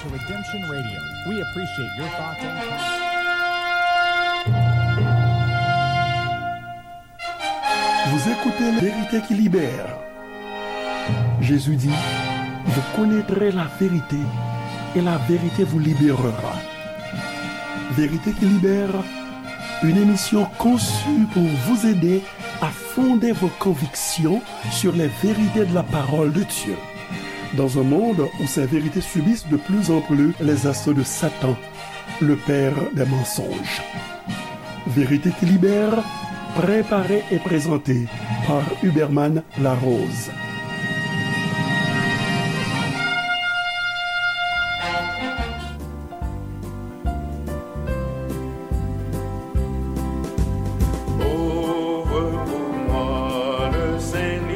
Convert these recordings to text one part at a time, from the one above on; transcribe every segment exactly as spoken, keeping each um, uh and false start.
Redemption Radio. We appreciate your thoughts and comments. Vous écoutez La Vérité qui libère. Jésus dit, vous connaîtrez la vérité et la vérité vous libérera. Vérité qui libère, une émission conçue pour vous aider à fonder vos convictions sur les vérités de la parole de Dieu. Dans un monde où ces vérités subissent de plus en plus les assauts de Satan, le père des mensonges. Vérité qui libère, préparée et présentée par Huberman Larose. Ouvre pour moi le Saint-Livre,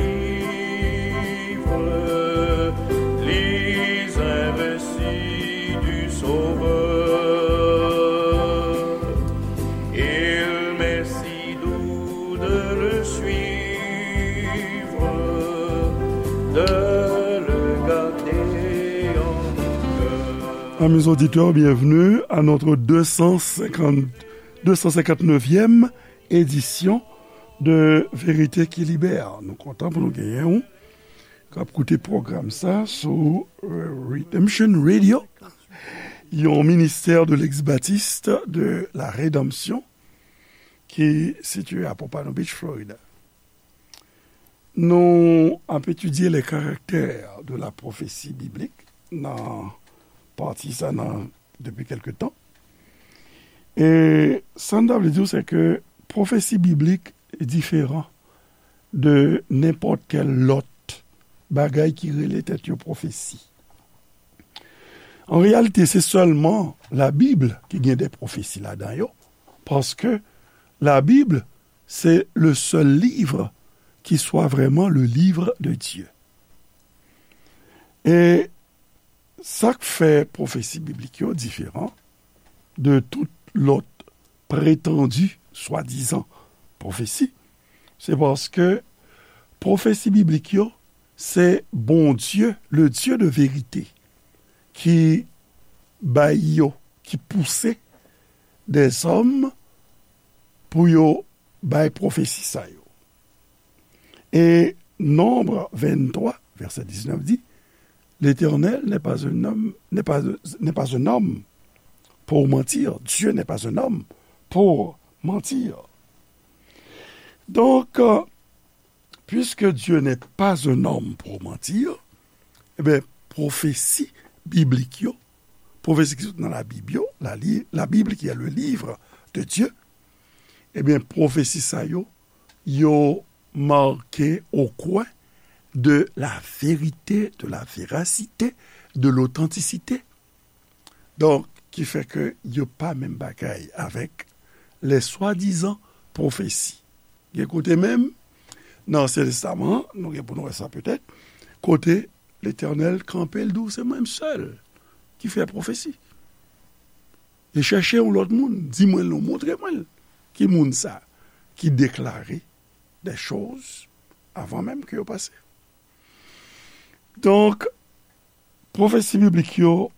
lis un récit du Sauveur. Il m'est si doux de le suivre, de le garder en mon cœur. Amis auditeurs, bienvenue à notre deux cent cinquante, deux cent cinquante-neuvième édition de Vérité qui Libère. Nou kontan pou nou genyen w k ap koute pwogram sa sou, euh, Redemption Radio, yon ministè de l'ex-baptiste de la Rédemption ki sitiye a Pompano Beach, Florida. Nou ap etidye les caractères de la prophétie biblique nan pati sa nan, depi kèlke tan. E sa n ta vle di w, se ke pwofesi biblik diferan de nenpòt kèl lòt bagay ki rele tèt yo pwofesi. An reyalite, se sèlman Labib ki gen de pwofesi ladan yo, paske Labib se le seul livre qui soit vraiment le livre de Dieu. E sa k fè pwofesi biblik yo diferan de tout lòt pretandi, swadizan, pwofesi, se paske pwofesi biblik yo, se Bondye, le Dieu de vérité, ki bay yo, ki pouse dèzòm pou yo bay pwofesi sa yo. E Nombre vingt-trois, verset dix-neuf dit, L'Éternel n'est pas un homme, n'est pas, n'est pas un homme pour mentir. Dieu n'est pas un homme pour mentir. Donc, euh, puisque Dieu n'est pas un homme pour mentir, eh bien, pwofesi biblik yo, pwofesi ki sot nan Labib yo, la li-, la Bible qui est le livre de Dieu, eh bien, pwofesi sa yo, yo marke au coin de la vérité, de la véracité, de l'authenticité. Donk, ki fè ke yo pa menm bagay avèk les swadizan pwofesi. Gen kote menm, nan Ansyen Testaman, nou gen pou nou wè sa petèt, kote Letènèl kanpe, l di w, se mwen menm sèl ki fè pwofesi. E chèche yon lòt moun, di mwen l non, montre mwen l. Ki moun sa ki deklare des choses avan menm ke yo pase? Donk, pwofesi biblik yo,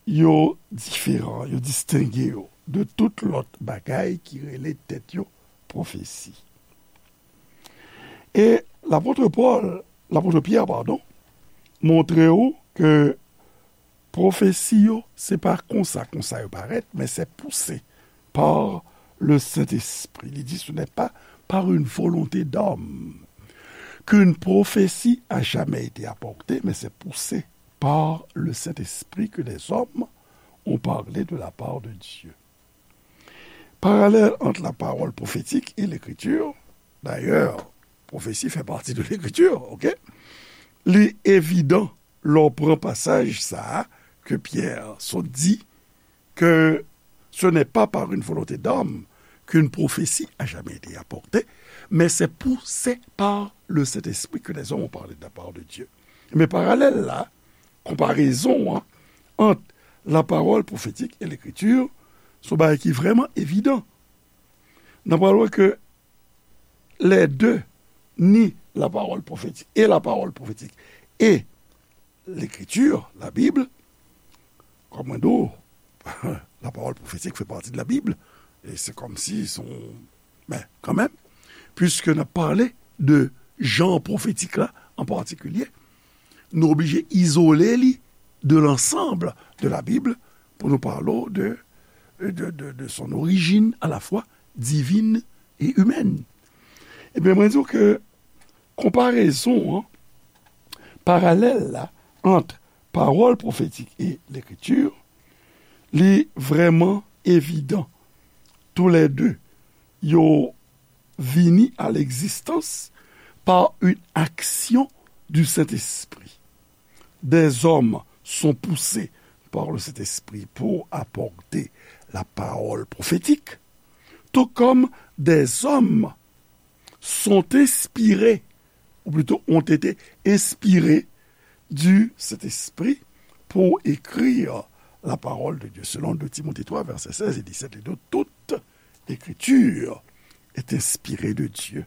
yo diferan, yo distenge yo de tout lòt bagay ki rele tèt yo pwofesi. E lapot Pòl, lapot Pyè, padon, montre w ke pwofesi yo, se pa konsa, konsa yo parèt, men se pouse par le Saint-Esprit. Li di, ce n'est pas par une volonté d'homme qu'une prophétie a jamais été apportée, mais c'est poussé par le Saint-Esprit que des hommes ont parlé de la part de Dieu. Parallèle entre la parole prophétique et l'écriture. D'ailleurs, pwofesi fè pati de l'écriture, ok? Li evidan lè w pran pasaj sa a ke Pyè sot di, que ce n'est pas par une volonté d'homme qu'une prophétie a jamais été apportée, mais c'est poussé par le Saint-Esprit que les hommes ont parlé de la part de Dieu. Men paralèl la, konparezon an ant la parole prophétique et l'écriture, se yon bagay ki vrèman evidan. N ap pral wè ke les deux, ni la parole prophétique et la parole prophétique et l'écriture, la Bible, Kòm mwen di w, la parole prophétique fait partie de la Bible. E se kòmsi se yon, men, kanmenm, puiske n ap pale de jan pwofetik la an patikilye, nou oblije izole li de l'ensemble de la Bible pou nou pale w de, de, de, de son origine à la fois divine et humaine. Ebyen, mwen di w ke konparezon an, paralèl la, ant parole prophétique et l'écriture, li vrèman evidan. Tou lè de, yo vini à l'existence par une action du Saint-Esprit. Des hommes sont poussés par le Saint-Esprit pour apporter la parole prophétique, tout comme des hommes sont inspirés, ou plutôt ont été inspirés du Saint-Esprit pour écrire la parole de Dieu, selon deux Timothée trois, versets seize et dix-sept. Et donc, toute écriture est inspirée de Dieu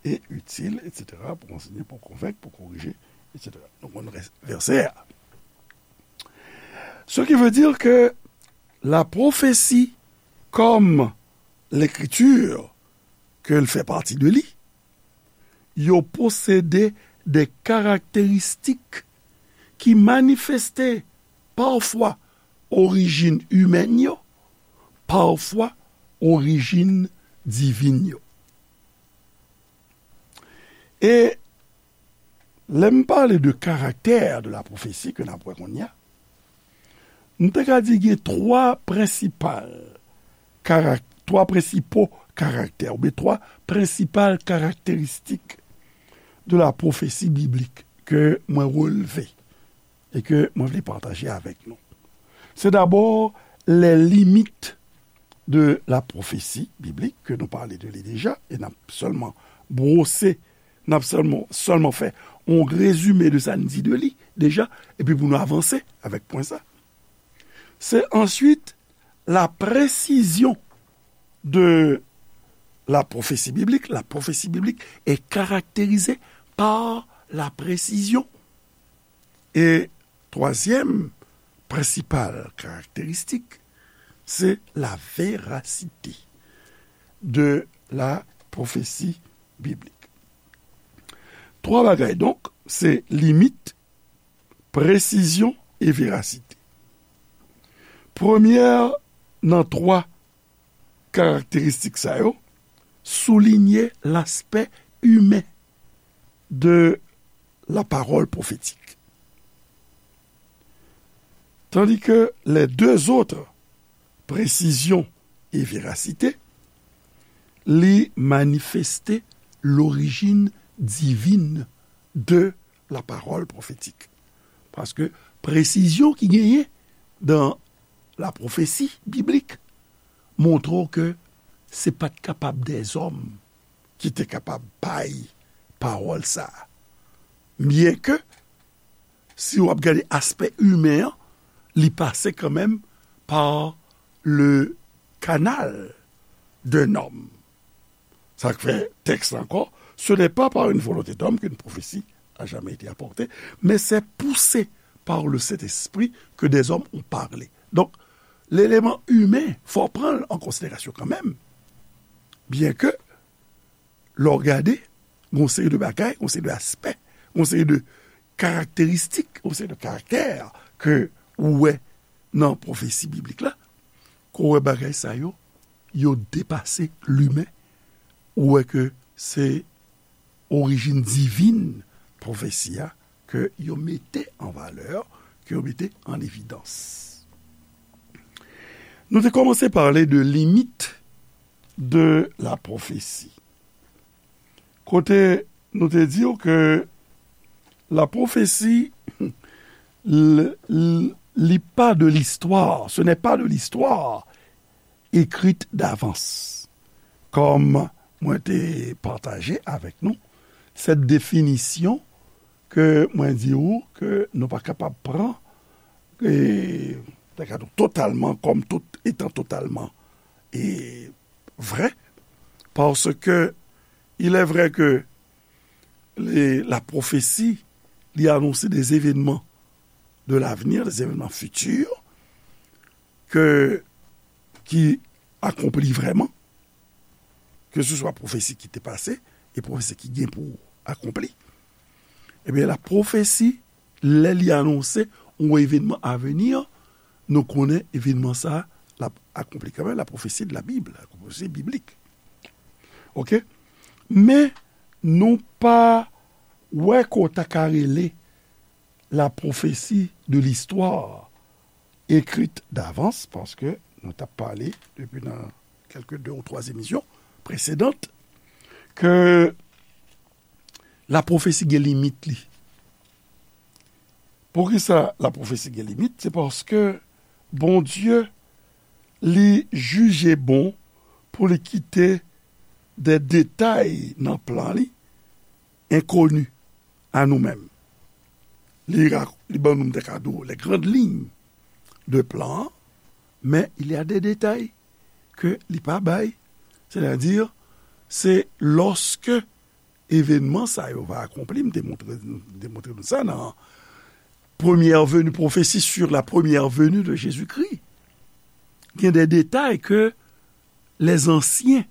et utile, et cetera, pour enseigner, pour convaincre, pour corriger, et cetera. Donc, on reste verset. Ce qui veut dire que la prophétie, comme l'écriture, ke l fè pati de li, yo posede de karakteristik ki manifeste pafwa orijin imèn yo, pafwa orijin divin yo. E lè m pale de karaktè de la pwofesi ke n ap wè kounye a, m te ka di gen twa prensipal karak-, twa prensipo karaktè, oubyen twa prensipal karakteristik de la pwofesi biblik ke mwen relve e ke mwen vle pataje avèk nou. Se dabò les limites de la prophétie biblique, ke nou pale de li deja, e n ap sèlman bwose, n ap sèlman, sèlman fè yon rezime de sa n di de li deja, epi pou nou avanse avèk pwen sa. Se answit la presizyon de la prophétie biblique. La prophétie biblique est caractérisée par la précision. E twazyèm prensipal karakteristik, se la verasite de la pwofesi biblik. Twa bagay, donk, se limit, presizyon e verasite. Premyè nan twa karakteristik sa yo soulinye laspè imen de la parole prophétique. Tandis que les deux autres, précision et véracité, li manifeste l'origine divine de la parole prophétique. Paske presizyon ki genyen dan la pwofesi biblik montre w ke se pa t kapab dèzòm ki te kapab bay pawòl sa a. Byenke, si w ap gade aspè imen an, li pase kanmenm pa le canal d'un homme. Sa k fè tèks la ankò, ce n'est pas par une volonté d'homme qu'une prophétie a jamais été apportée, mais c'est poussé par le Saint-Esprit que des hommes ont parlé. Donk, leleman imen, fò w pran l an konsiderasyon kanmenm. Byenke, lè w gade, gen yon seri de bagay, gen yon seri de aspè, gen yon seri de karakteristik, gen yon seri de karaktè ke ou wè nan pwofesi biblik la, ke w wè bagay sa yo, yo depase limen, ou wè ke se orijin divin pwofesi a ke yo mete an valè, ke yo mete an evidans. Nou te kòmanse pale de limit de la pwofesi. Kote nou te di w ke la pwofesi, l-, l-, li pa de listwa, ce n'est pas de l'histoire écrite d'avance. Kòm mwen te pataje avèk nou, sèt definisyon ke mwen di ou ke nou pa kapab pran, e, ta ka di w totalman, kòm tout etan totalman, e, vrè, paske il est vrai que les, la prophétie, li anonse des événements de l'avenir, des événements futurs, ke, ki akonpli vrèman, ke se swa pwofesi ki te pase e pwofesi ki gen pou akonpli, ebyen, la pwofesi, lè li anonse yon evènman a vini, nou konnen evènman sa a l ap akonpli kanmenm, la pwofesi de la Bible, la pwofesi biblik. Oke? Men, nou pa wè ke w ta ka rele la pwofesi de listwa ekrit davans, paske nou t ap pale depi nan kèlke de ou twa emisyon presedan, ke la pwofesi gen limit li. Poukisa la pwofesi gen limit? Se paske Bondye, li jije bon pou li kite de detay nan plan li enkoni a nou menm. Li ra-, li ban nou, m te ka di w, les grandes lignes de plan an, men il y a des détails ke li pa bay. Sètadi, se lòske evènman sa yo va akonpli, m te montre, m te montre nou sa nan première venue, prophétie sur la première venue de Jésus-Christ. Gen de detay ke les anciens,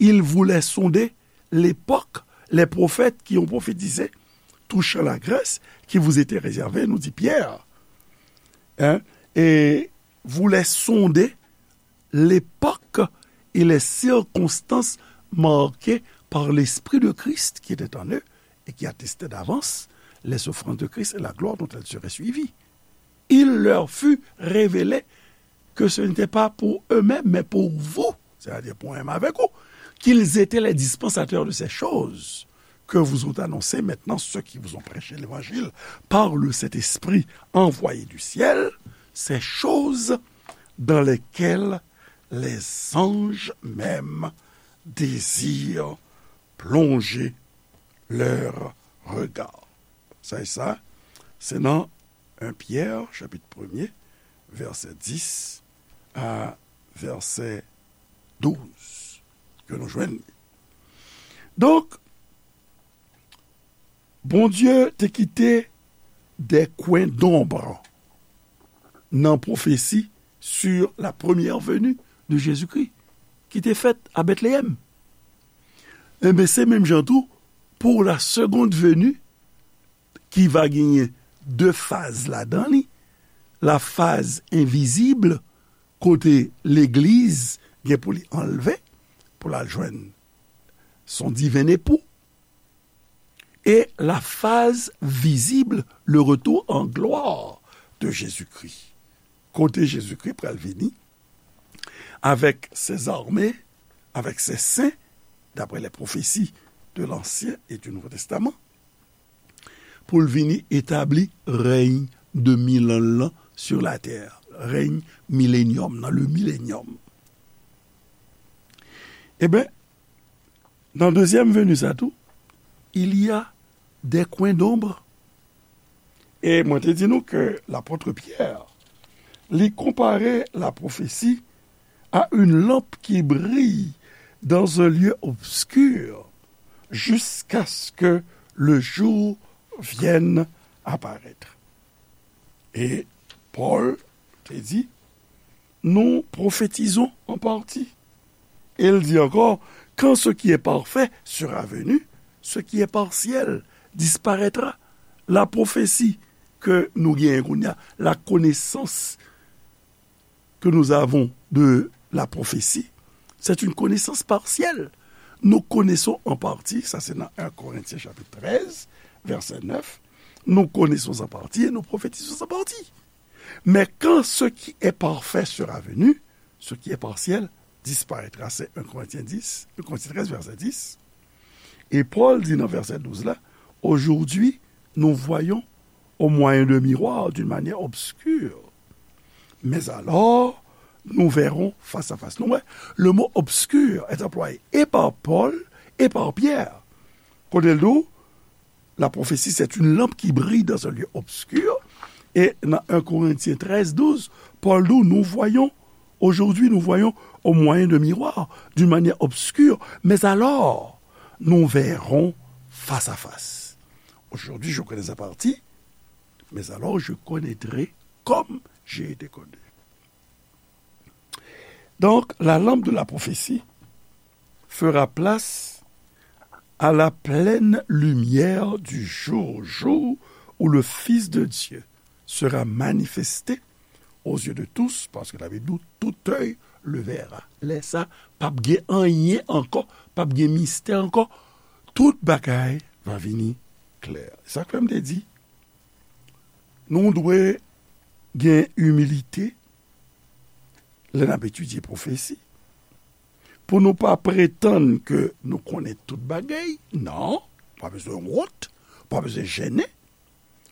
ils voulaient sonder l'époque, les prophètes qui ont prophétisé touchant la Grèce qui vous était réservée, nous dit Pierre. Hein? Et voulaient sonder l'époque et les circonstances marquées par l'Esprit de Christ qui était en eux et qui attestait d'avance les souffrances de Christ et la gloire dont elles seraient suivies. Il leur fut révélé que ce n'était pas pour eux-mêmes, mais pour vous, c'est-à-dire pour moi-même avec vous, qu'ils étaient les dispensateurs de ces choses que vous ont annoncées maintenant ceux qui vous ont prêché l'évangile par le Saint-Esprit envoyé du ciel, ces choses dans lesquelles les anges même désirent plonger leur regard. Sa e sa, se nan en Pyè, chapit premye, vèsè dis a vèsè douz, ke nou jwenn li. Donk, Bondye te kite des coins d'ombre nan pwofesi sur la première venue de Jésus-Christ, ki te fèt a Bètleyèm. Enben, se menm jan tou, pour la seconde venue, ki va genyen de faz ladan li, la phase invisible, kote legliz gen pou li anlve, pou l al jwenn son diven epou, e la phase visible, le retour en gloire de Jésus-Christ, kote Jezikri pral vini avèk ses armées, avèk ses saints, d'après les prophéties de l'Ancien et du Nouveau Testament, pou l vini etabli rèy de mil an lan sur la terre, rèy milenyòm nan, le millennium. Eben, nan dezyèm veni sa tou, il y a des coins d'ombre. E mwen te di nou ke lapòt Pyè, li konpare la prophétie à une lampe qui brille dans un lieu obscur jusqu'à ce que le jour vienne apparaître. E Pòl te di, nous prophétisons en partie. Et il dit encore, quand ce qui est parfait sera venu, ce qui est partiel disparaîtra. La prophétie ke nou genyen kounye a, la connaissance que nous avons de la prophétie, c'est une connaissance partielle. Nous connaissons en partie, sa se nan en Corinthiens chapitre treize, verset neuf, nous connaissons en partie et nous prophétisons en partie. Mais quand ce qui est parfait sera venu, ce qui est partiel disparaîtra. C'est un Corinthiens dix, un Corinthiens treize, verset dix. Et Paul dit dans verset douze là, aujourd'hui, nous voyons au moyen d'un miroir, d'une manière obscure. Mais alors, nous verrons face à face. Nou wè, le mot obscur est employé et par Paul et par Pierre. Kote l di w, la prophétie, c'est une lampe qui brille dans un lieu obscur. Et dans un Corinthiens treize, douze, Paul dit, nous voyons, aujourd'hui, nous voyons au moyen de miroir, d'une manière obscure, mais alors, nous verrons face à face. Aujourd'hui, je connais en partie, mais alors je connaîtrai comme j'ai été connu. Donc, la lampe de la prophétie fera place à la pleine lumière du jour, jour où le Fils de Dieu sera manifesté aux yeux de tous, parce que la Bible dit, tout œil le verra. Lè sa, p ap gen anyen ankò, p ap gen mistè ankò. Tout bagay va vini klè. Sa k fè m te di, nou dwe gen imilite lè n ap etidye pwofesi, pou nou pa pretann ke nou konnen tout bagay. Non, pa bezwen wont, pa bezwen jennen.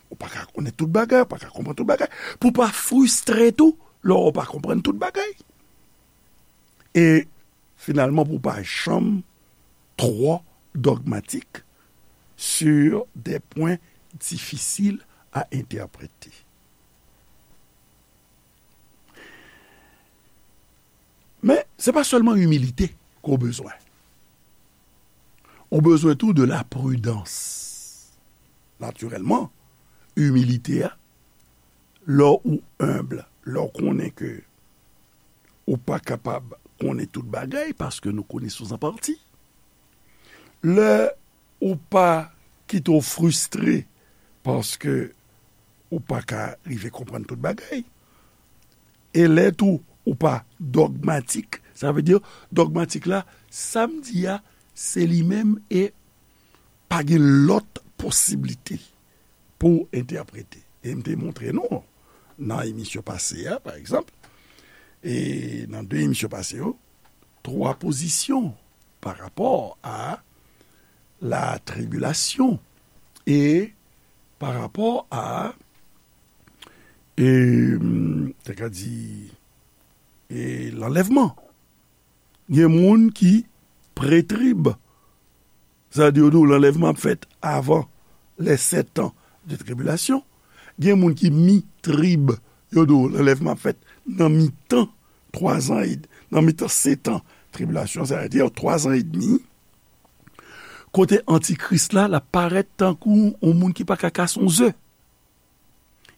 Ou pa ka konnen tout bagay, ou pa ka konprann tout bagay. Pou pa fristre tou, lè w pa konprann tout bagay. E finalman, pou pa janm twò dogmatik sur des points difficiles à interpréter. Men, se pa sèlman imilite ke w bezwen. Ou bezwen tou de la pridans. Natirèlman, imilite a, lè ou enb, lè w konnen ke ou pa kapab konnen tout bagay, paske nou konnen sou an pati. Lè ou pa kite w fristre paske ou pa ka rive konprann tout bagay. E lè tou ou pa dogmatik, sa vle di dogmatik la, sa m di a, se li menm e pa gen lòt posiblite pou w entèprete. E m te montre nou nan emisyon pase a, pa egzanp, e nan de emisyon pase yo, twa pozisyon pa rapò a la tribilasyon e pa rapò a, e, m te ka di, e lanlèvman. Gen moun ki pretrib, sa di yo di w lanlèvman ap fèt avan les sept ans de tribulation. Gen moun ki mitrib, yo di w lanlèvman ap fèt nan mitan twa zan e, nan mitan sèt an tribilasyon, sa vle di twa zan edmi, kote antikris la, l ap parèt tankou yon moun ki pa ka kase yon ze.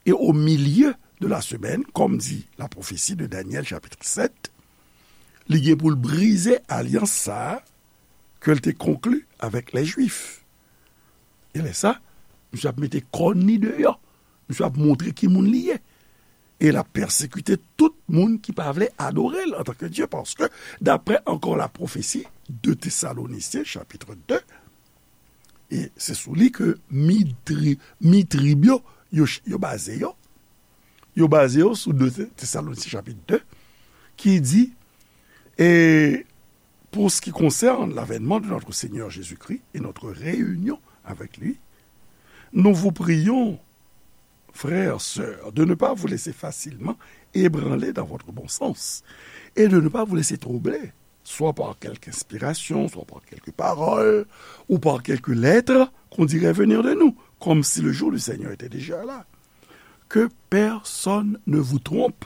Et au milieu de la semaine, comme dit la prophétie de Daniel chapitre sept, li gen pou l brize alyans sa a ke l te konkli avèk lè Jwif. E lè sa, misye ap mete kòn li deyò. Misye ap montre ki moun li ye. E l ap pèsekite tout moun ki pa vle adore l antanke Dye, paske, daprè ankò la pwofesi, de Tesalonisyen, chapitre de, e se sou li ke mi tri-, mi trib yo, yo, yo baze yo. Yo baze yo sou de Tesalonisyen, chapit de, ki di, et pour ce qui concerne l'avènement de notre Seigneur Jésus-Christ et notre réunion avec lui, nous vous prions, frères, sœurs, de ne pas vous laisser facilement ébranler dans votre bon sens et de ne pas vous laisser troubler, soit par quelque inspiration, soit par quelque parole, ou par quelque lettre qu'on dirait venir de nous, comme si le jour du Seigneur était déjà là. Que personne ne vous trompe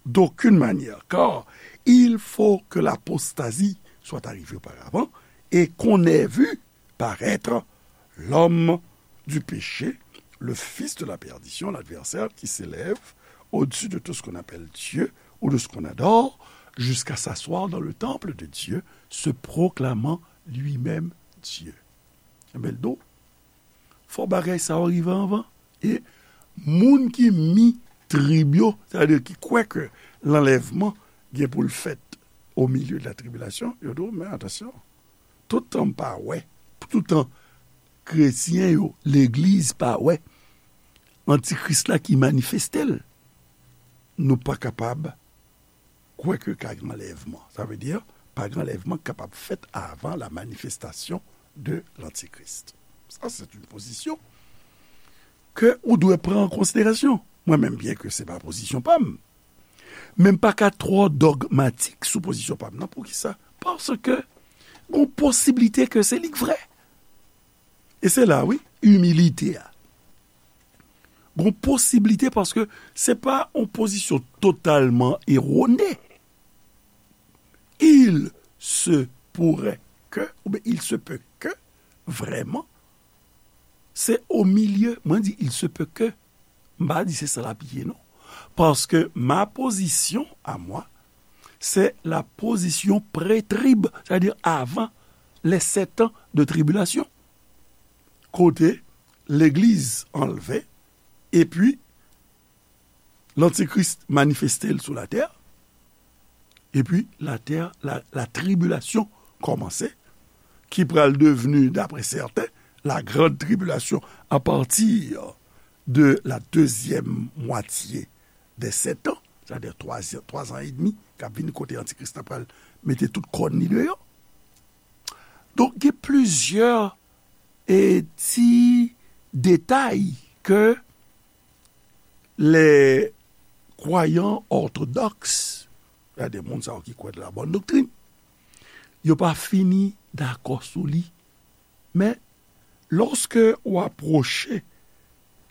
d'aucune manière, car il faut que l'apostasie soit arrivée auparavant et qu'on ait vu paraître l'homme du péché, le fils de la perdition, l'adversaire qui s'élève au-dessus de tout ce qu'on appelle Dieu ou de ce qu'on adore, jusqu'à s'asseoir dans le temple de Dieu, se proclamant lui-même Dieu. Ebyen, l di w, fò bagay sa yo rive anvan. E moun ki mi trib yo, sètadi ki kwè ke lanlèvman gen pou l fèt au milieu de la tribulation, yo di w, men atansyon, toutan m pa wè, toutan kretyen yo, legliz pa wè antikris la ki manifeste l, nou pa kapab kwè ke ka gen anlèvman. Sa vle di, pa gen anlèvman k kapab fèt avan la manifestation de l'Antichrist. Sa, se yon pozisyon ke ou dwe pran an konsiderasyon. Mwen menm, byen ke se pa pozisyon pa m, men m pa ka twò dogmatik sou pozisyon pa m nan. Poukisa? Paske gon posiblite ke se li k vrè. E se la, wi, imilite a. Gon posiblite paske se pa yon pozisyon totalman erone. Il se pourrait que, oubyen il se peut que, vrèman, se o milye, mwen di il se peut que, m pa di se sa l ap ye, non. Paske ma position à moi, c'est la position pré-trib, c'est-à-dire avant les sept ans de tribulation, kote legliz anlve, epi lantikris manifeste l sou latè, epi latè, la, la tribilasyon kòmanse, ki pral devni, d'après certains, la grande tribulation à partir de la deuxième moitié des sept ans, c'est-à-dire twa, twa zan edmi k ap vini, kote antikris la pral mete tout kòn li deyò. Donk, gen plizyè, e, ti detay ke les croyants orthodoxes, c'est-à-dire moun sa yo ki kwè de la bonne doctrine, yo pa fini dakò sou li. Men, lòske ou apwoche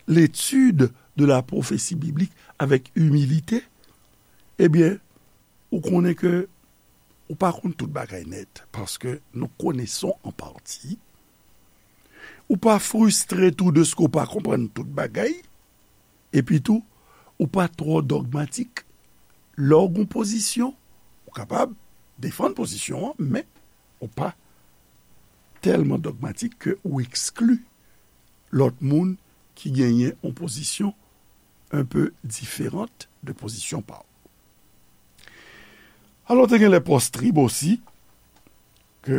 l'étude de la prophétie biblique avec humilité, ebyen, ou konnen ke ou pa konn tout bagay nèt, parce que nous connaissons en partie. Ou pa fristre tou dèske ou pa konprann tout bagay, epi tou, ou pa twò dogmatik. Lè w gen yon pozisyon, ou kapab defann pozisyon an, men ou pa tèlman dogmatik ke ou ekskli lòt moun ki genyen yon pozisyon un peu différente de pozisyon pa w. Alò, te gen les post-trib osi, ke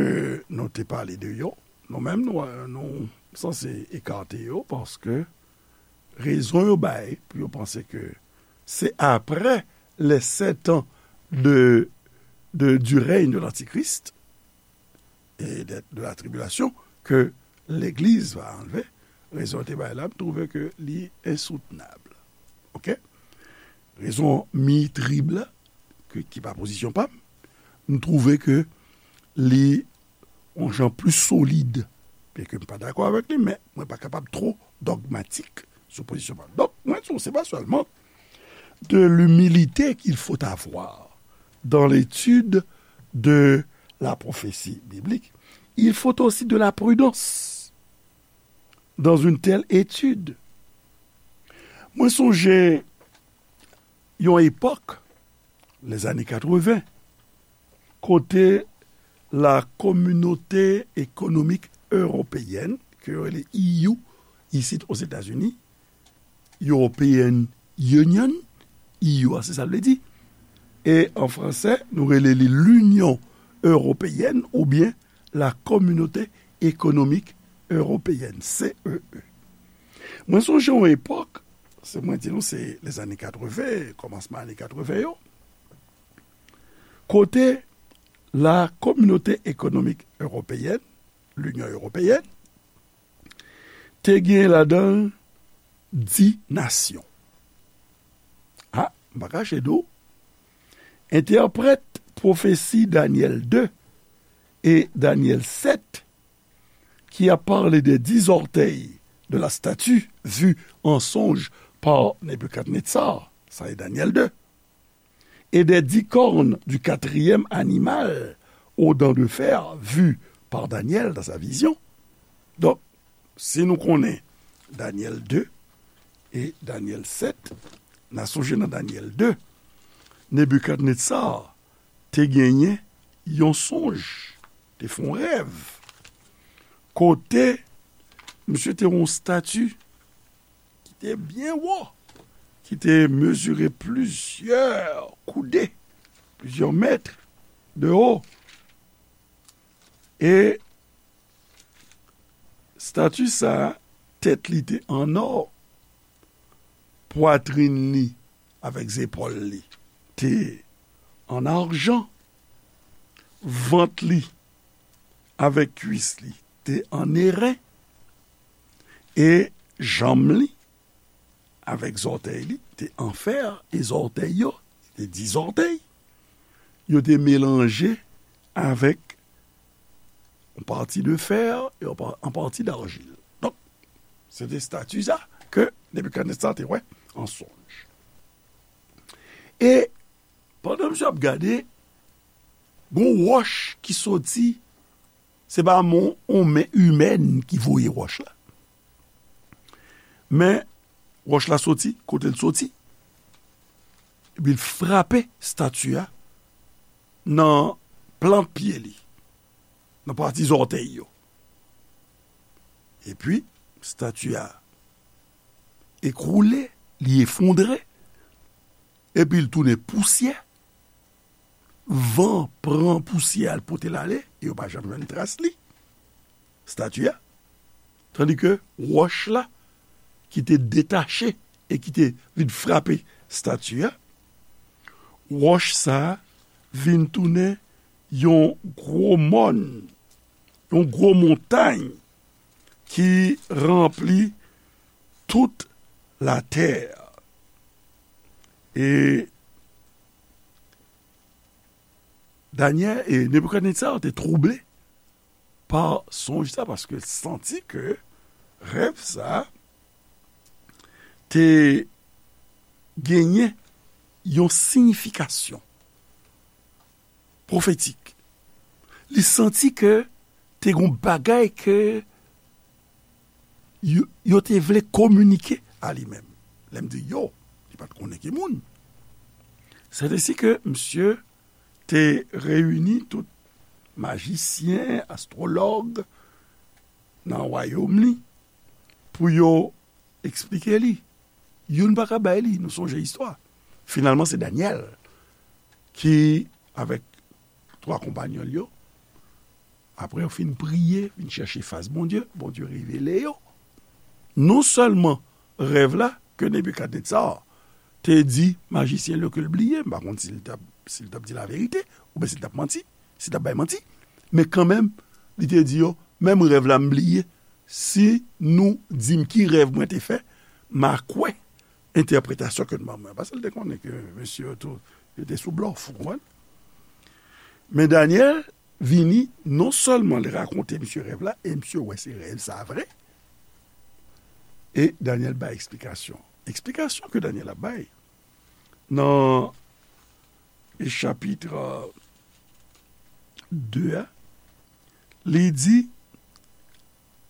nou te pale de yo. Nou menm, nou, nou sanse ekate yo, paske rezon yo bay pou yo panse ke se après les sept ans de, de, du règne de l'Antichrist et de, de la tribulation ke legliz va anlve. Rezon yo te bay la, m twouve ke li ensoutenab. Oke? Rezon mi-trib la, ke, ki pa pozisyon pa m, m twouve ke li yon jan plis solid. Byenke m pa dakò avèk li, men mwen pa kapab twò dogmatik sou pozisyon pa m. Donk, mwen di w, se pa sèlman de l'humilité qu'il faut avoir dans l'étude de la prophétie biblique. Il faut aussi de la prudence dans une telle étude. Mwen sonje yon epòk, les années quatre-vingts, kote la Communauté économique européenne, ke yo rele E U, isit Ozetazini, European Union, E U a, se sa l vle di. E an fransè, nou rele li l'Union européenne oubyen la Communauté économique européenne, C E E. Mwen sonje yon epòk, se mwen di nou, se lèzane katreven, kòmansman ane katreven yo, kote la Communauté économique européenne, l'Union européenne, te gen ladan l dis nasyon. A, m pa kache di w, entèprèt pwofesi Danyèl de e Danyèl sèt, qui a parlé des dix orteils de la statue vue en songe par Nebuchadnezzar, sa e Danyèl de, et des dix cornes du quatrième animal aux dents de fer vues par Daniel dans sa vision. Donk, si nou konnen Danyèl de e Danyèl sèt, n a sonje nan Danyèl de, Nebikadnetsa te genyen yon sonj, te fè yon rèv, kote misye te wè yon estati ki te byen wo, ki te mezire plizyè koude, plizyè mèt de wo. E estati sa a, tèt li te an nò, pwatrin li avèk zepòl li te an ajan, vant li avèk kwis li te an eren, e janm li avèk zòtèy li te an fè, e zòtèy yo, se te dis zòtèy, yo te melanje avèk yon pati de fè e yon pa-, yon pati darjil. Donk, se te estati sa ke Nebikadnetsa te wè an sonj. E pandan misye ap gade, gon wòch ki soti, se pa men yon men imèn ki voye wòch la. Men wòch la soti, kote l soti, epi l frape estati a, nan plant pye li, nan pati zòtèy yo. Epi, estati a ekwoule, li efondre, epi l tounen pousyè. Van pran pousyè a, l pote l ale, e yo pa janm jwenn tras li, estati a. Tandike wòch la, ki te detache e ki te vin frape estati a, wòch sa a vin tounen yon gwo mòn, yon gwo montay ki ranpli tout latè. E Danyèl e Nebikadnetza te twouble pa sonj sa, paske l santi ke rèv sa te genyen yon siyifikasyon pwofetik. Li santi ke te gon bagay ke yo, yo te vle kominike a li menm. Lè m di yo, li pa t konnen ki moun. Sètesi ke misye te reyini tout majisyen, astwològ nan wayòm li pou yo eksplike li. Youn pa ka bay li, nou sonje istwa. Finalman, se Danyèl ki, avèk twa konpayòn l yo, apre yo fin priye, vin chèche fas Bondye, Bondye revele yo non sèlman rèv la ke Nebikadnetza te di majisyen l yo ke l bliye, m pa konn si l t ap, si l t ap di laverite, oubyen si l t ap manti, si l t ap bay manti, men kanmenm, li te di yo, menm rèv la m bliye, si nou di m ki rèv mwen te fè, m a kwè entèpretasyon ke n ban mwen. Paske l te konnen ke mesye yo tou, yo te sou blòf, ou konprann? Men Danyèl vini, non sèlman li rakonte misye rèv la, e misye wè se rèv sa vre, e Danyèl bay eksplikasyon. Eksplikasyon ke Danyèl ap bay nan chapit de a, li di,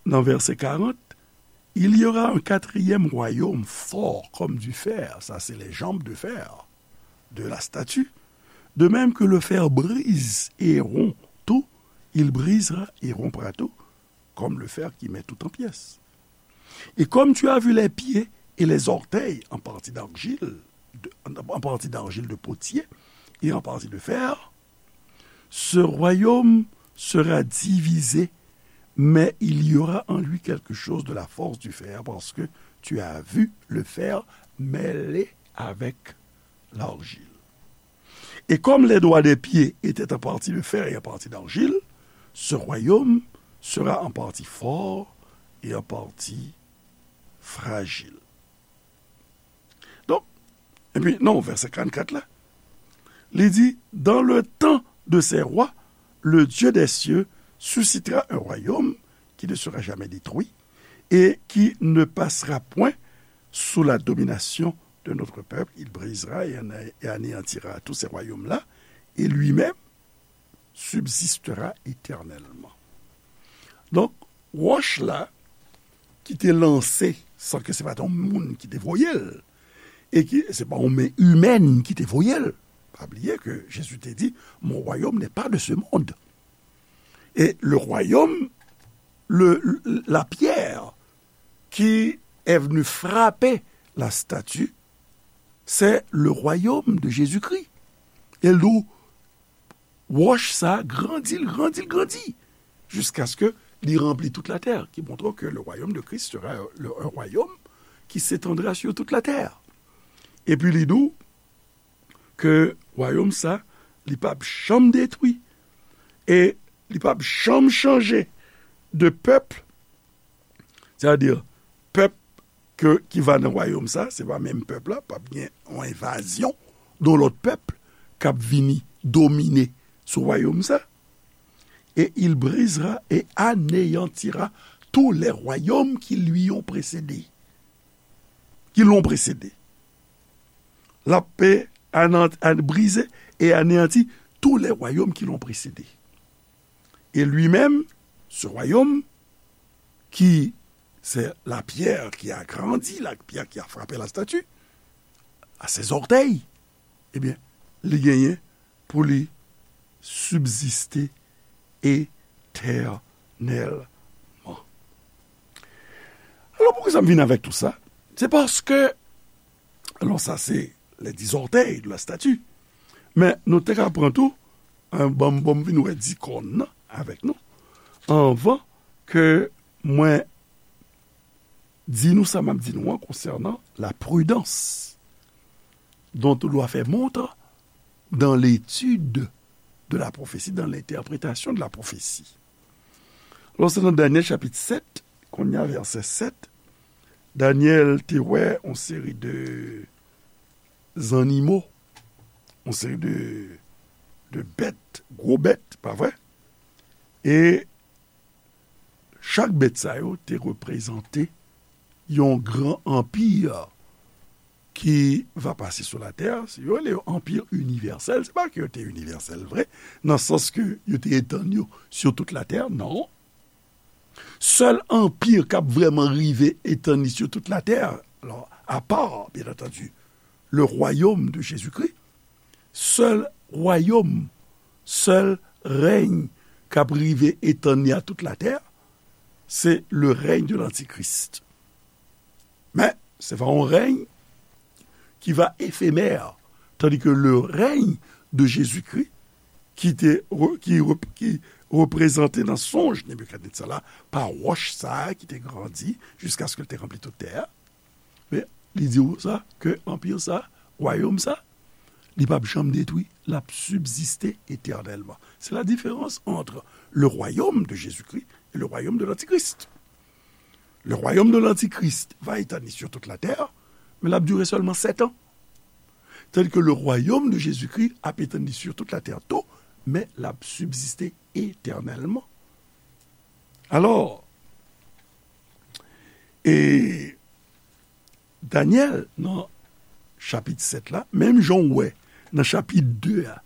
nan vèsè karant, il y aura un quatrième royaume fort comme du fer, ça c'est les jambes de fer de la statue, de même que le fer brise et rompt tout, il brisera et rompra tout, comme le fer qui met tout en pièces. Et comme tu as vu les pieds et les orteils en partie d'argile, de- en partie d'argile de potier et en partie de fer, ce royaume sera divisé, mais il y aura en lui quelque chose de la force du fer, parce que tu as vu le fer mêlé avec l'argile. Et comme les doigts des pieds étaient en partie de fer et en partie d'argile, ce royaume sera en partie fort et en partie fragile. Donk, epi, non, vèsè karannkat la, li di, dans le temps de ces rois, le Dieu des cieux suscitera un royaume qui ne sera jamais détruit et qui ne passera point sous la domination de notre peuple. Il brisera et anéantira tous ces royaumes-là, et lui-même subsistera éternellement. Donk, wòch la ki te lanse, san ke se pa t yon moun ki te voye l, e ki, se pa yon men imèn ki te voye l. Pa bliye ke Jezi te di, mon royaume n'est pas de ce monde. Et le royaume, le, la pierre qui est venue frapper la statue, c'est le royaume de Jésus-Christ. E l di w, wòch sa a grandi, l grandi, l grandi, jiskaske li ranpli tout latè, ki montre ke le royaume de Christ sera le, un royaume qui s'étendra sur toute la terre. Epi li di w ke wayòm sa, li p ap janm detwi, e li p ap janm chanje de pèp, sètadi pèp ke, ki va nan wayòm sa, se pa menm pèp la, p ap gen yon envazyon de yon lòt pèp k ap vini domine sou wayòm sa. Et il brisera et anéantira tous les royaumes qui lui ont précédé, qui l'ont précédé. L ap anan-, an-, brize e aneyanti tous les royaumes qui l'ont précédé. Et lui-même, ce royaume, qui, c'est la pierre qui a grandi, la pierre qui a frappé la statue, à ses orteils, ebyen, li genyen pou li sibziste etènèlman. Alò, poukisa m vin avèk tou sa? Se paske, alò, sa se les dix orteils de la statue. Men nou te ka pran tou, eh, ban m, ban m vin wè dix kòn nan avèk nou, anvan ke mwen di nou sa m ap di nou an konsènan la prudence dont on doit faire montre dans l'étude de la prophétie, dans l'interprétation de la prophétie. Lòske nan Danyèl chapit sèt, kounye a vèsè sèt, Danyèl te wè yon seri de zannimo, yon seri de, de bèt, gwo bèt, pa vre? E chak bèt sa yo te reprezante yon gran anpi ki va pase sou latè. Yo rele yo anpi inivèsèl. Se pa ke yo te inivèsèl vre, nan sans ke yo te etann yo sou tout latè, non. Sèl anpi k ap vrèman rive etann li sou tout latè, alò, apa, byen antandi, le royaume de Jésus-Christ, sèl wayòm, sèl rèy k ap rive etann li a tout latè, se le règne de l'Antichrist. Men, se va yon rèy ki va efemè, tandis que le règne de Jésus-Christ, ki te re-, ki re-, ki reprezante nan sonj Nebikadnetza la pa wòch sa a ki te grandi jiskaske l te ranpli tout tè a. Men, li di w sa, ke anpi sa, wayòm sa, li p ap janm detwi, l ap sibziste etènèlman. C'est la différence entre le royaume de Jésus-Christ et le royaume de l'Antichrist. Le royaume de l'Antichrist va etann li sur toute la terre, men l ap dire sèlman sèt an. Tandis que le royaume de Jésus-Christ ap etann li sur toute la terre tou, men l ap sibziste etènèlman. Alò, e Danyèl, nan chapit sèt la, menm jan w wè nan chapit de a,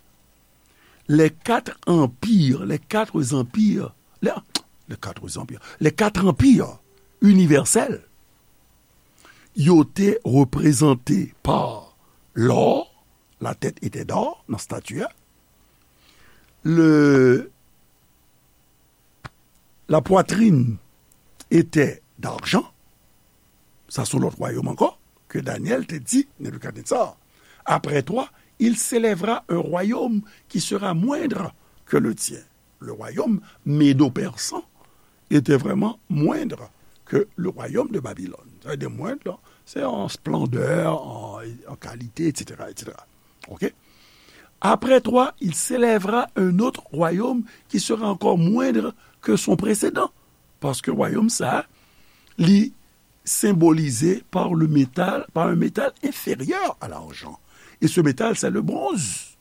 les quatre empires, les quatre empires, les, les quatre empires, les quatre empires universels, yo te reprezante pa lò, la tèt etè dò nan stati a, le, la poitrine était d'argent. Sa se yon lòt wayòm ankò, ke Danyèl te di Nebikadnetza. Après toi, il s'élèvera un royaume qui sera moindre que le tien. Le royaume médo-persan était vraiment moindre que le royaume de Babylone. Sa vle di moindre, se an splendè, an, an kalite, et cetera, et cetera. Ok? Après toi, il s'élèvera un autre royaume qui sera encore moindre que son précédent. Paske wayòm sa, li symbolize par le métal, par un métal inférieur à l'argent. Et ce métal, c'est le bronze.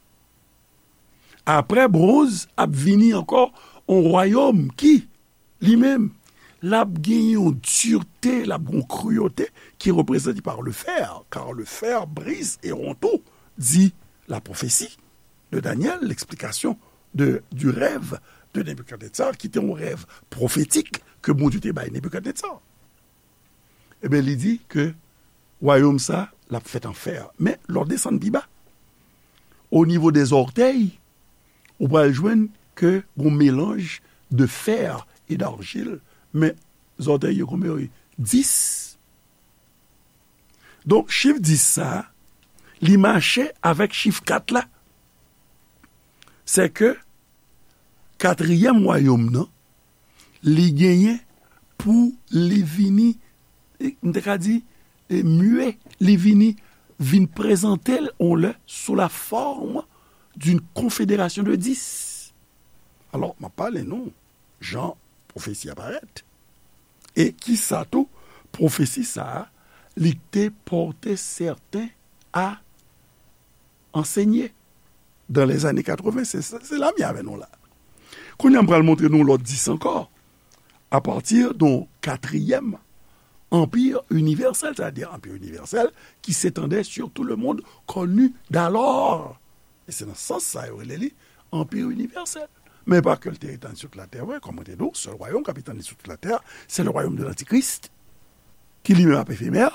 Apre bronz, ap vini ankò yon wayòm ki, li menm, l ap gen yon dirte, l ap gen yon kriyote ki reprezante par le fer, car le fer brise et rompt tout, dit la prophétie de Daniel, l'explication de, du rêve de Nebikadnetsar, ki te yon rèv pwofetik ke Bondye te bay Nebikadnetsar. Ebyen, li di ke wayòm sa, l ap fèt an fè. Men, lè w desann pi ba, o nivo dè zòtèy, ou pral jwenn ke gon melanj de fer et d'argile, men zòtèy yo konbyen yo ye? Dis. Donk, chif dis sa, li mache avèk chif kat la. Sè ke katriyèm wayòm nan, li genyen pou li vini, e, m te ka di, e, mye, li vini, vin prezante l on lè sou la forme d'une confédération de dix. Alò, m ap pale nou jan pwofesi a parèt. E kisa tou, pwofesi sa a, li te pòte sèten a ansenye dans les années quatre-vingts, se, se, se la m ye avè nou la. Kounye a, m pral montre nou lòt dis ankò, à partir d'un quatrième empire universel, c'est-à-dire empire universel qui s'étendait sur tout le monde connu d'alors. E se nan sans sa yo rele li anpi inivèsèl. Men pa ke l te etann sou tout latè vre, kòm mwen te di w, sèl wayòm k ap etann li sou tout latè, se le royaume de l'Antichrist, ki li menm ap efemè,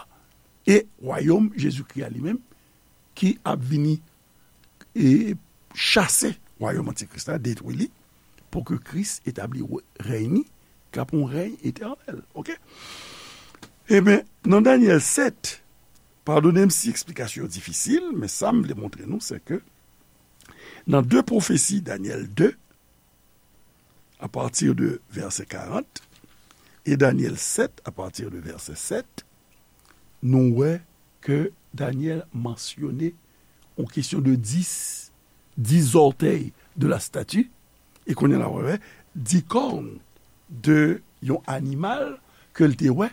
e wayòm Jezikri a li menm, ki ap vini e chase wayòm antikris la, detwi li, pou ke Kris etabli rèy ni, k ap yon rèy etènèl. Oke? Ebyen, nan Danyèl sèt, padone m si eksplikasyon yo difisil, men sa m vle montre nou, se ke nan de pwofesi, Danyèl de, apati de vèsè karant, e Danyèl sèt, apati de vèsè sèt, nou wè ke Danyèl mansyone yon kesyon de dis, dis zòtèy de la stati, e kounye a la wè dis kòn de yon animal ke l te wè,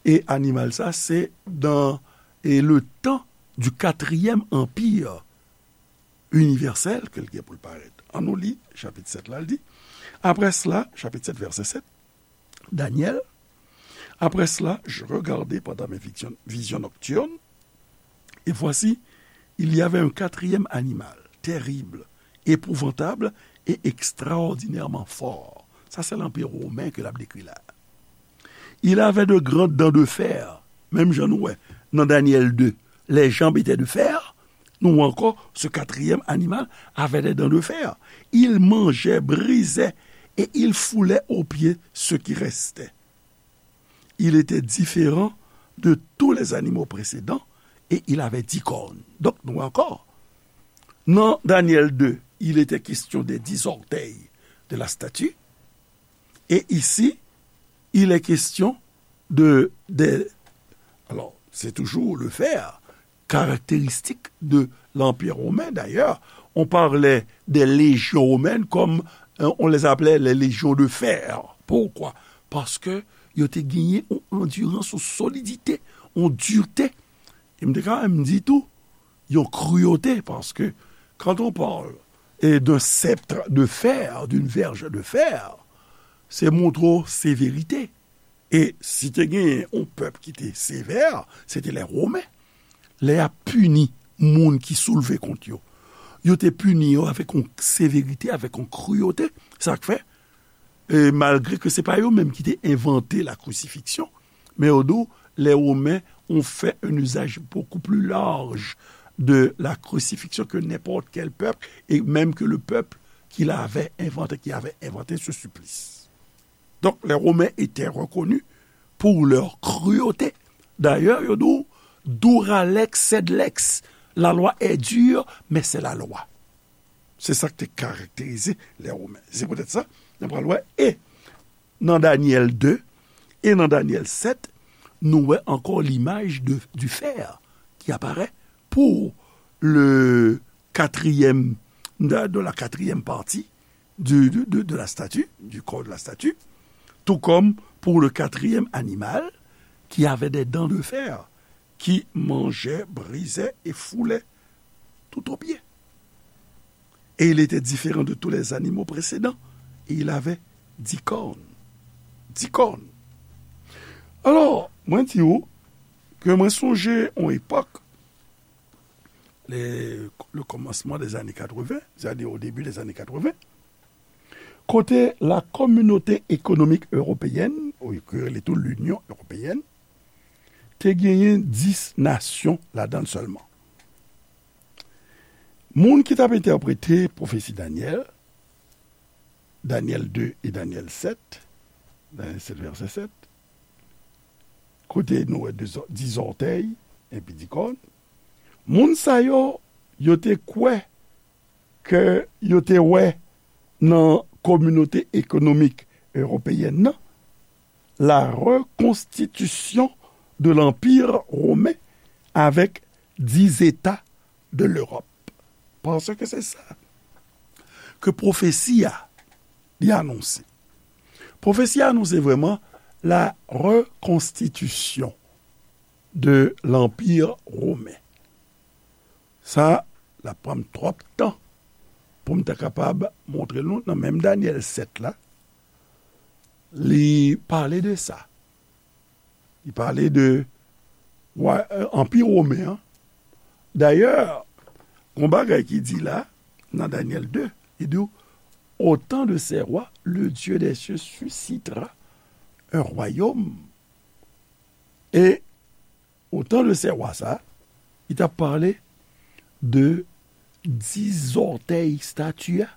e animal sa se dans e le temps du quatrième empire universel ke l gen pou l parèt. An nou li chapit sèt la, l di, après cela, chapitre sept, verset sept, Daniel, après cela, je regardai pendant mes visions, visions nocturnes, et voici, il y avait un quatrième animal, terrible, épouvantable et extraordinairement fort. Sa se lanpi women ke l ap dekri la. Il avait de grandes dents de fer, menm jan nou wè nan Daniel deux, les jambes étaient de fer, nou wè ankò, ce quatrième animal avait des dents de fer. Il mangeait, brisait et il foulait aux pieds ceux qui restaient. Il était différent de tous les animaux précédents et il avait dix cornes. Donk, nou wè ankò, nan Daniel deux, il était question des dix orteils de la statue. Et ici, il est question de, de, alors, c'est toujours le fer, caractéristique de l'Empire romain. D'ailleurs, on parlait des légions romaines comme, euh, on les appelait les légions de fer. Pourquoi? Paske yo te genyen yon andirans, yon solidite, yon dirte. E m te ka menm di tou, yon kriyote, paske quand on parle, eh, d'un sceptre de fer, d'une verge de fer, se montre w severite. E si te genyen yon pèp ki te sevè, se te lè Women. Lè y ap pini moun ki soulve kont yo, yo te pini yo avèk yon severite, avèk yon kriyote. Sa k fè, e malgre ke se pa yo menm ki te envante la crucifixion, men yo di w, les Romains ont fait un usage beaucoup plus large de la crucifixion que n'importe quel peuple, et même que le peuple qui l'avait inventé, qui avait inventé ce supplice. Donc, les Romains étaient reconnus pour leur cruauté. D'ailleurs, yo di w, dura lex sed lex. La loi est dure, mais c'est la loi. Se sa ki te karakterize lè Women. Se poutèt sa, nou pral wè, e nan Danyèl de e nan Danyèl sèt, nou wè ankò limaj de, du fer ki aparèt pou le quatrième, de, de la quatrième partie du, de, de, de la statue, du corps de la statue, tout comme pour le quatrième animal qui avait des dents de fer, qui mangeait, brisait et foulait tout au pied. Et il était différent de tous les animaux précédents, et il avait dix cornes. Dix cornes. Alò, mwen di w ke mwen sonje yon epòk, le, le commencement des années quatre-vingts, c'est-à-dire au début des années quatre-vingts, kote la Communauté économique européenne, ou yo rele tou l'Union européenne, te genyen dis nasyon ladan l sèlman. Moun ki t ap entèprete pwofesi Danyèl, Danyèl de e Danyèl sèt, Danyèl sèt vèsè sèt, kote nou wè de zò-, dis zòtèy epi dis kòn, moun sa yo, yo te kwè ke yo te wè nan Communauté économique européenne nan, la reconstitution de l'Empire romain avec dix États de l'Europe. Paske se sa ke pwofesi a, li anonse. Pwofesi a anonse vrèman la reconstitution de l'Empire romain. Sa, l ap pran m twòp tan pou m ta kapab montre nou nan menm Danyèl sèt la, li pale de sa. Li pale de wa, eh, Anpi Women an. Dayè, gon bagay ki di la, nan Danyèl de, li di w, au temps de ces rois, le Dieu des cieux suscitera un royaume. E au temps de ces rois sa, li t ap pale de dis zòtèy estati a,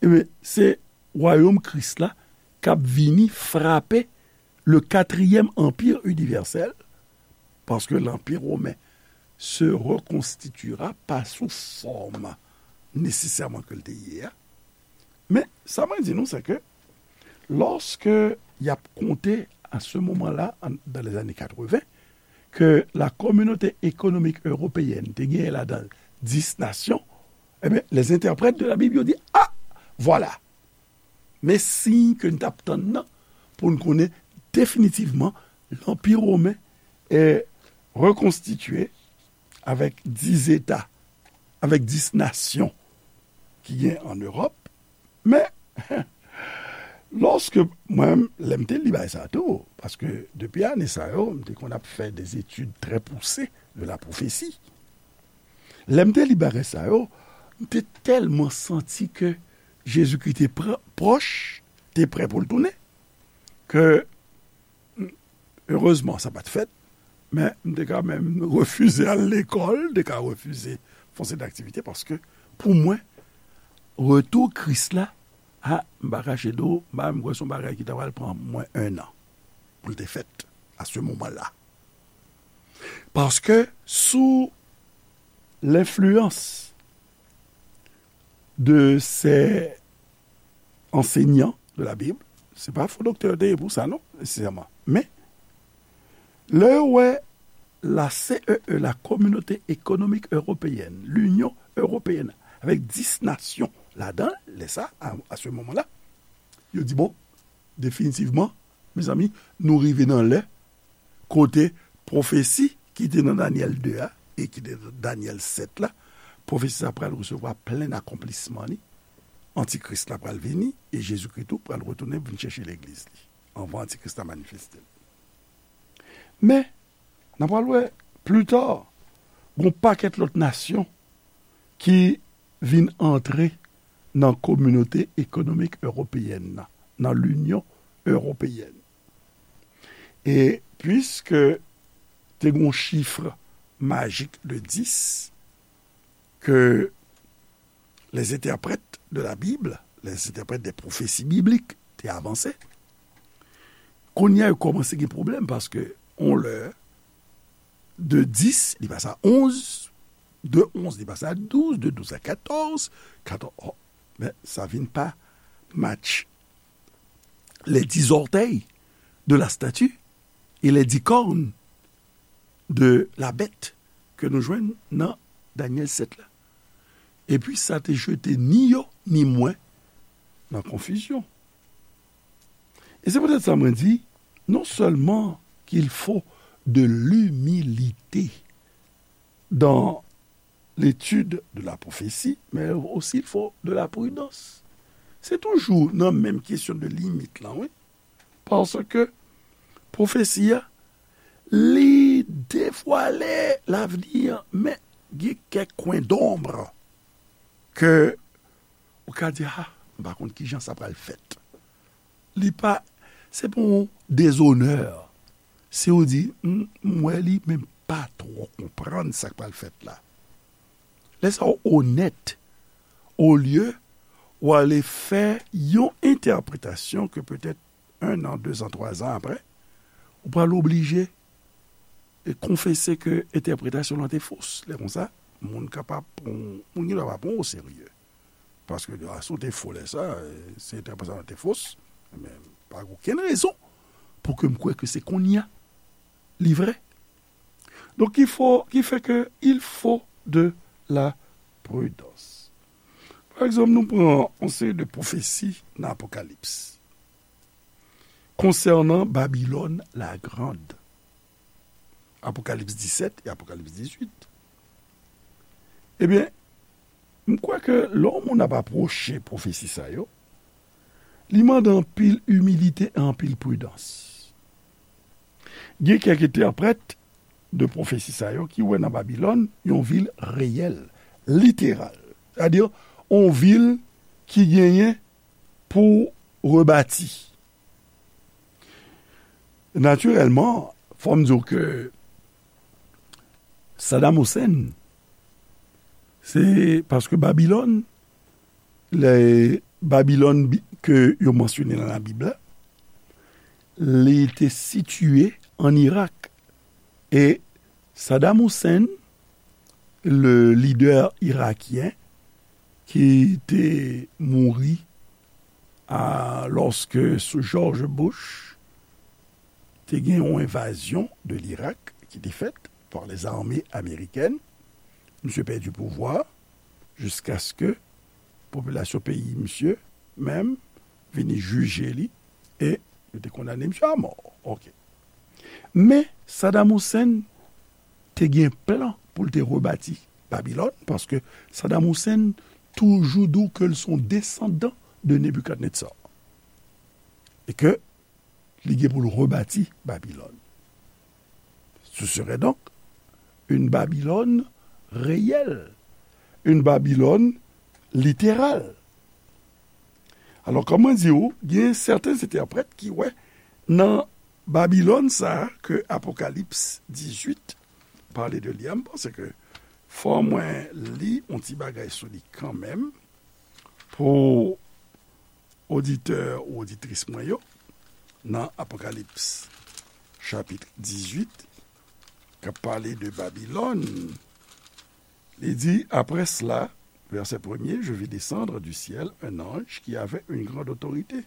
ebyen, se wayòm Kris la k ap vini frape le quatrième empire universel, paske l'Empire romain se reconstituera pa sou fòm nesesèman ke l te ye a. Men, sa mwen di nou, se ke lòske y ap konte à ce moment-là, dans les années quatre-vingts, ke la communauté économique européenne te genyen ladan l dis nasyon, ebyen, les interprètes de la Bible yo di, ah, vwala, men siy ke n t ap tann nan pou n konnen definitivman lanpi women e rekonstitye avèk dis eta, avèk dis nasyon ki gen an Ewòp. Men, lòske mwen, lè m te li bagay sa tou, paske depi ane sa yo, m te konn ap fè de etid trè pouse de la pwofesi. Lè m te li bagay sa yo, m te tèlman santi ke Jezikri te pr- pwòch, te prè pou l tounen, ke erezman, sa pa t fèt, men m te ka menm refize al lekòl, m te ka refize fè yon seri d aktivite, paske pou mwen, retou Kris la, a, m pa kache di w, m pa menm kwè se yon bagay ki ta pral pran mwen ennan pou l te fèt, à ce moment-là. Paske sou lenfliyans de ces enseignants de la Bible, se pa fo doktè yo te ye pou sa, non, nesesèman. Men, lè yo wè la C E E, la Communauté économique européenne, l'Union européenne, avèk dis nasyon ladan l, lè sa, à, à ce moment-là, yo di, bon, definitivman, mezanmi, nou rive nan lè kote pwofesi ki te nan Danyèl de a e ki te nan Danyèl sèt la, pwofesi sa pral resevwa plen akonplisman li. Antikris la pral vini e Jezikri tou pral retounen vin chèche legliz li anvan Antikris la manifeste l. Men, n a pral wè pli ta, gon pakèt lòt nasyon ki vin antre nan Kominote Ekonomik Ewopeyèn nan, nan Linyon Ewopeyèn. E piske te gon chif majik de dis ke les interprètes de la Bible, les interprètes des prophéties bibliques te avanse, kounye a yo kòmanse gen pwoblèm paske on lè de dis, li pase a onz, de onz, li pase a douz, de douz a katòz, katòz, oh, men sa vin pa match les dix orteils de la statue et les dix cornes de la bête ke nou jwenn nan Danyèl sèt la. Epi sa te jete ni yo, ni mwen nan konfizyon. E se poutèt sa mwen di, non sèlman qu'il faut de l'humilité dans l'étude de la prophétie, mais aussi il faut de la prudence. Se toujou nan menm kesyon de limit lan, wi. Paske pwofesi a, li devwale lavni an, men gen kèk kwen donb ke ou ka di, ah, m pa konn kijan sa pral fèt. Li pa, se pa yon dezonè. Si w di, m, m wè li, men m pa twò konprann sa k pral fèt la. Lè sa w onèt, olye w ale fè yon entèpretasyon ke petèt en an, de zan, twa zan apre, ou pral oblije e konfese ke entèpretasyon lan te fos. Lè konsa, moun kapab pran, moun gen dwa pa pran w oserye. Paske, a, si w te fo lè sa, e, si entèpretasyon lan te fos, men pa gen okenn rezon pou ke m kwè ke se kounye a li vrè. Donk, ki fo, ki fè ke il faut de la prudence. Pa egzanp, nou pran yon seri de pwofesi nan Apokalips konsènan Babilòn la Grande. Apokalips disèt e Apokalips dizuit. Ebyen, m kwè ke lè yon moun ap apwoche pwofesi sa yo, li mande anpil imilite e anpil pridans. Gen kèk entèprèt de pwofesi sa yo ki wè nan Babilòn yon vil reyèl, literal. Sètadi, yon vil ki genyen pou rebati. Natirèlman, fò m di w ke Saddam Hussein Se paske Babilòn, lè Babilòn bi- ke yo mansyone nan Labib la, li te sitiye ann Irak. E Saddam Hussein, le lidè irakyen ki te mouri a, lòske sou George Bush, te gen yon envazyon de l'Irak ki te fèt par les armées américaines. Misye pèdi pouvwa jiskaske popilasyon peyi misye menm vini jije li e yo te kondane misye a mò. Ok. Men Saddam Hussein te gen plan pou l te rebati Babilòn, paske Saddam Hussein toujou di w ke l se yon desandan de Nebikadnetza. E ke li gen pou l rebati Babilòn. Ce serait donc une Babylone réelle, une Babylone littérale. Alò, kòm mwen di w, gen sèten entèprèt ki wè nan Babilòn sa a ke Apokalips dizuit pale de li a, m panse ke fò mwen li yon ti bagay sou li kanmenm pou oditè ou oditris mwen yo, nan Apokalips chapit dizuit, k ap pale de Babilòn, li di, après cela, verset premier, je vis descendre du ciel un ange qui avait une grande autorité.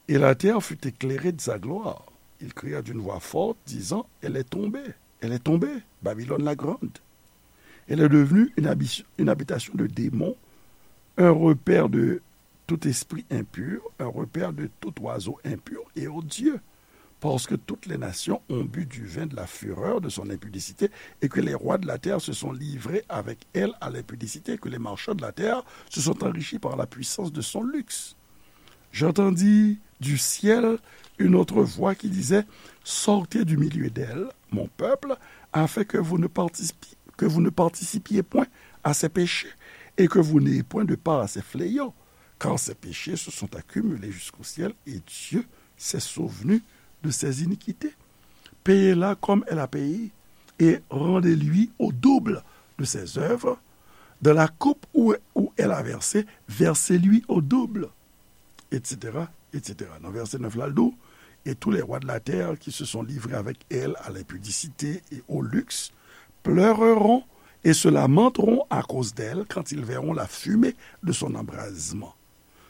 Et la terre fut éclairée de sa gloire. Il cria d'une voix forte, disant, elle est tombée, elle est tombée, Babylone la grande. Elle est devenue une habi- une habitation de démons, un repaire de tout esprit impur, un repaire de tout oiseau impur et odieux. Parce que toutes les nations ont bu du vin de la fureur de son impudicité, et que les rois de la terre se sont livrés avec elle à l'impudicité, et que les marchands de la terre se sont enrichis par la puissance de son luxe. J'entendis du ciel une autre voix qui disait, sortez du milieu d'elle, mon peuple, afin que vous ne participiez, que vous ne participiez point à ses péchés, et que vous n'ayez point de part à ses fléaux, car ses péchés se sont accumulés jusqu'au ciel, et Dieu s'est souvenu de ses iniquités. Payez-la comme elle a payé, et rendez-lui au double de ses œuvres. Dans la coupe où, où elle a versé, versez-lui au double, et cetera, et cetera. Nan vèsè nèf la, l di w, et tous les rois de la terre qui se sont livrés avec elle à l'impudicité et au luxe pleureront et se lamenteront à cause d'elle quand ils verront la fumée de son embrasement.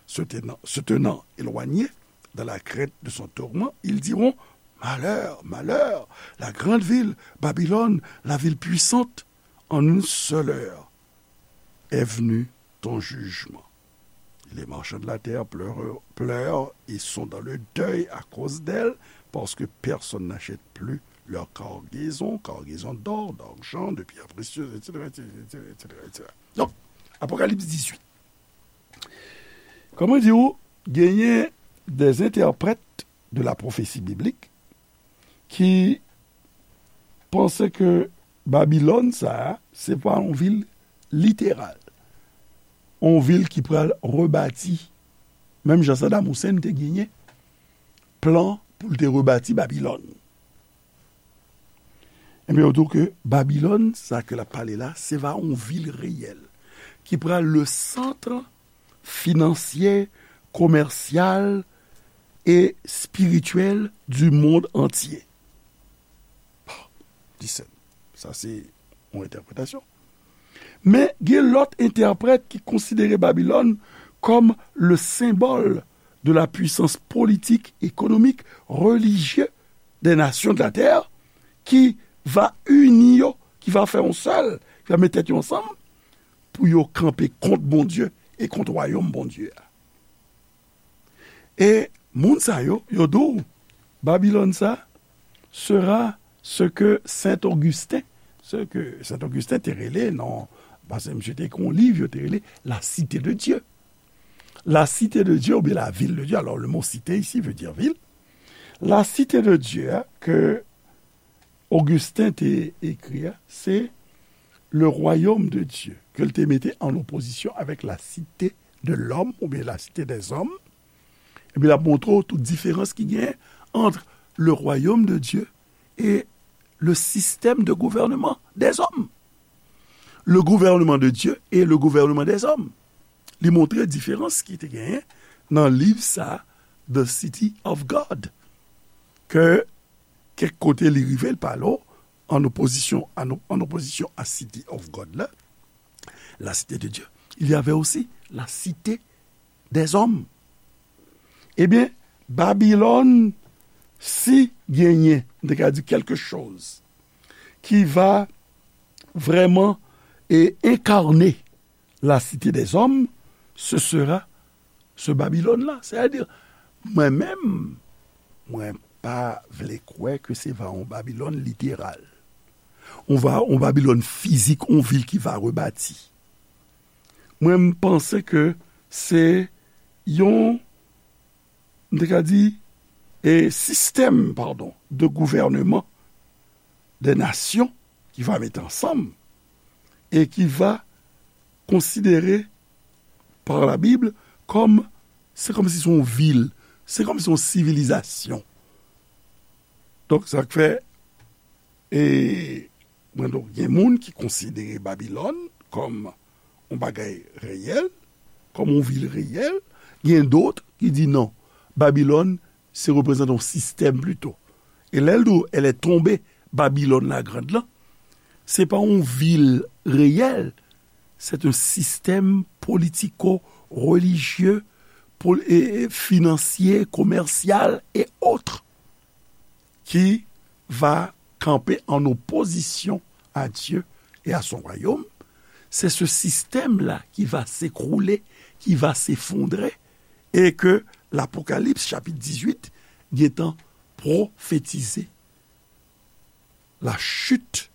Se tenant, se tenant éloignés dans la crainte de son tourment, ils diront, malheur, malheur, la grande ville, Babylone, la ville puissante, en une seule heure est venu ton jugement. Les marchands de la terre pleurent, pleurent et sont dans le deuil à cause d'elle, parce que personne n'achète plus leur cargaison, cargaison d'or, d'argent, de pierres précieuses, et cetera, et cetera, et cetera, et cetera. Donc, Apocalypse dix-huit. Kòman di w, genyen des interprètes de la prophétie biblique ki panse ke Babilòn sa a, se pa yon vil literal, yon vil ki pral rebati, menm jan Saddam Hussein te genyen plan pou l te rebati Babilòn. Ebyen, yo di w ke Babilòn, sa ke l ap pale la, se va yon vil reyèl ki pral le centre financier, commercial et spirituel du monde entier. Listen, sa se yon entèpretasyon. Men gen lòt entèprèt ki konsidere Babilòn kòm le symbole de la puissance politique, économique, religieuse des nations de la terre, ki va ini yo, ki va fè yon sèl, ki va met tèt yo ansanm pou yo kanpe kont Bondye e kont wayòm Bondye a. E moun sa yo, yo di w, Babilòn sa sera ce que Saint Augustin, ce que Saint Augustin te rele, non, paske misye te ekri yon liv, yo te rele La Cité de Dieu. La Cité de Dieu oubyen la Ville de Dieu. Alors, le mot cité ici veut dire ville. La Cité de Dieu, hein, ke Augustin te ekri a, se le royaume de Dieu, ke l te mete an opozisyon avèk la cité de l'homme oubyen la cité des hommes. Epi l ap montre w tout diferans ki genyen ant le royaume de Dieu et le système de gouvernement des hommes. le gouvernement de Dieu et le gouvernement des hommes. Li montre diferans ki te genyen nan liv sa, The City of God, ke kèk kote li rive, l pale w an opozisyon, an, an opozisyon a City of God la, la cité de Dieu, il y avait aussi la cité des hommes. Ebyen, Babilòn, si genyen, m te ka di quelque chose qui va vraiment et incarner la cité des hommes, ce sera ce Babylone-là. Sètadi, mwen menm, mwen pa vle kwè ke se va yon Babilòn literal. On va, yon Babilòn fizik, yon vil ki va rebati. Mwen, m panse ke se yon, m te ka di, e sistèm, padon, de gouvènman de nasyon ki va mete ansanm e ki va konsidere par la Bible kòm, se kòmsi se yon vil, se kòmsi yon sivilizasyon. Donk, sa k fè, e, mwen, donk, gen moun ki konsidere Babilòn kòm yon bagay reyèl, kòm yon vil reyèl, gen dòt ki di non, Babilòn, se reprezante yon sistèm plito. E lè l di w, elle est tombée, Babylone la Grande lan, se pa yon vil reyèl, c'est un système politico-religieux, pol-, e, e, financier, commercial et autres, qui va camper en opposition à Dieu et à son royaume. C'est ce système-là qui va s'écrouler, qui va s'effondrer, et que l'Apocalypse, chapitre dix-huit, gentan pwofetize la chute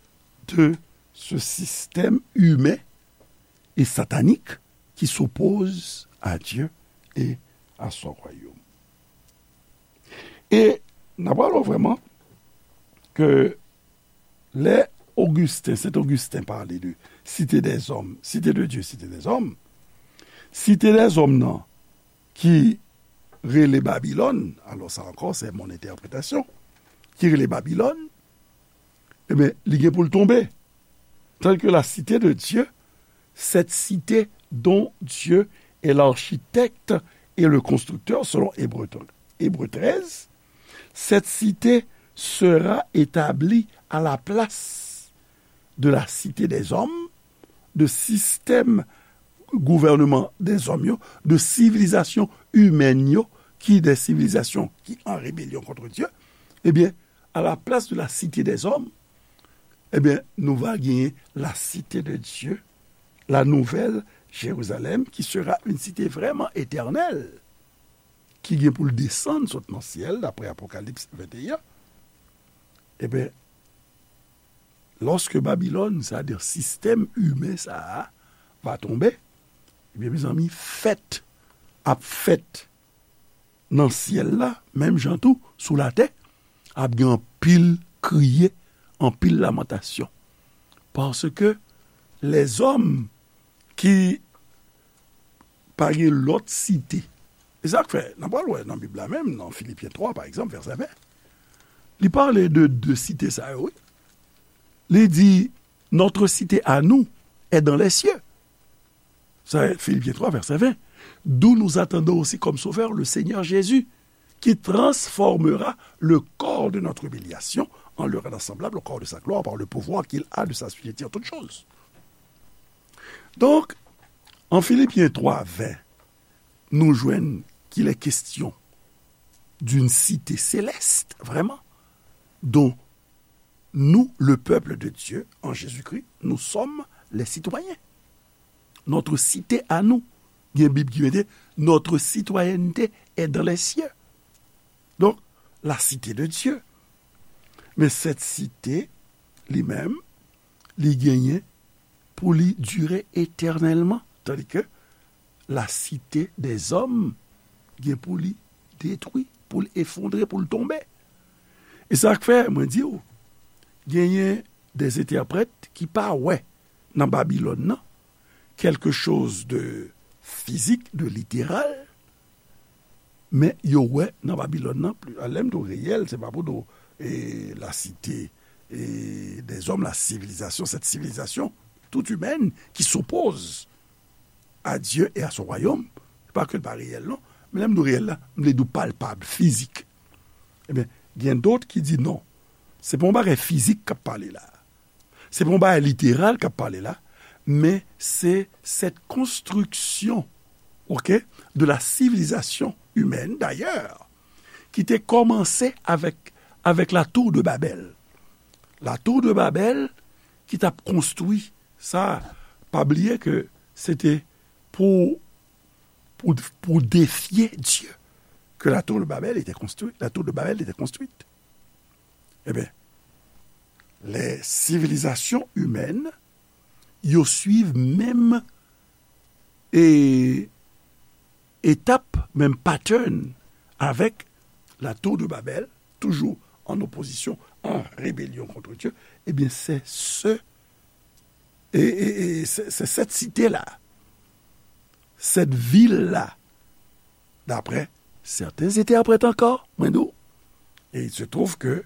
de ce système humain et satanique qui s'oppose à Dieu et à son royaume. E n ap wè vrèman ke lè Augustin, Saint Augustin pale de cité des hommes, cité de Dieu, cité des hommes, cité des hommes nan ki rele Babilòn, alò sa ankò se mon entèpretasyon, ki rele Babilòn, ebyen, li gen pou l tonbe. Tandis que la cité de Dieu, cette cité dont Dieu est l'architecte et le constructeur, selon Hébreu, Hébreu treize, cette cité sera établie à la place de la cité des hommes, de système gouvènman dèzòm yo, de sivilizasyon imèn yo, ki de sivilizasyon ki an rebelyon kont Dye, ebyen, à la place de la cité des hommes, ebyen, nou va genyen la cité de Dieu, la nouvelle Jérusalem, qui sera une cité vraiment éternelle, ki gen pou l desann sot nan syèl, daprè Apokalips venteyen. Ebyen, lòske Babilòn, sètadi sistèm imen sa a, va tonbe, ebyen, mezanmi, fèt ap fèt nan syèl la, menm jan tou, sou latè, ap gen anpil kriye, anpil lamantasyon. Paske lèzòm ki pa gen lòt site. E sa k fè, n ap pral wè nan Bib la menm, nan Filipyen twa, pa egzanp, vèsè ven, li pale de de site sa yo, wi. Li di, notre cité à nous est dans les cieux. Sa, Filipyen twa, vèsè ven. D'où nous attendons aussi comme sauveur le Seigneur Jésus, qui transformera le corps de notre humiliation en le rendre semblable au corps de sa gloire par le pouvoir qu'il a de s'assujettir toutes choses. Donk, an Filipyen twa ven, nou jwenn qu'il est question d'une cité céleste, vraiment, dont nous, le peuple de Dieu, en Jésus-Christ, nous sommes les citoyens. Notre cité à nous. Gen Bib ki mete, notre citoyenneté est dans les cieux. Donk, la cité de Dieu. Men cette cité, li menm, li genyen pou li dire etènèlman. Tandis que la cité des hommes gen pou li detwi, pou l efondre, pou l tonbe. E sa k fè, mwen di w, genyen des entèprèt ki pa wè nan Babilòn nan quelque chose de physique, de littéral, men yo wè nan Babilòn nan, pli, lè m di w reyèl, se pa pou di w, e, la cité, e, des hommes, la civilisation, cette civilisation, tout humaine qui s'oppose à Dieu et à son royaume, pa ke l pa reyèl non, men lè m di w reyèl la, m vle di w palpab, fizik. Ebyen, gen dòt ki di non, se pa yon bagay fizik k ap pale la. Se pa yon bagay literal k ap pale la, men se cette construction, ok, de la civilisation humaine, d'ailleurs, ki te kòmanse avèk, avèk la tour de Babel. La tour de Babel ki t ap konstwi sa, pa bliye ke se te pou, pou, pou defye Dye ke la tour de Babel était construite, la tour de Babel était construite. Ebyen, les civilisations humaines, yo swiv menm e, etap, menm pattern avèk la tour de Babel, toujours en opposition, en rébellion contre Dieu, ebyen, se se, e, e, e, se, se cette cité-là, cette ville-là, d'après certains interprètes encore, mwen di w, et il se trouve que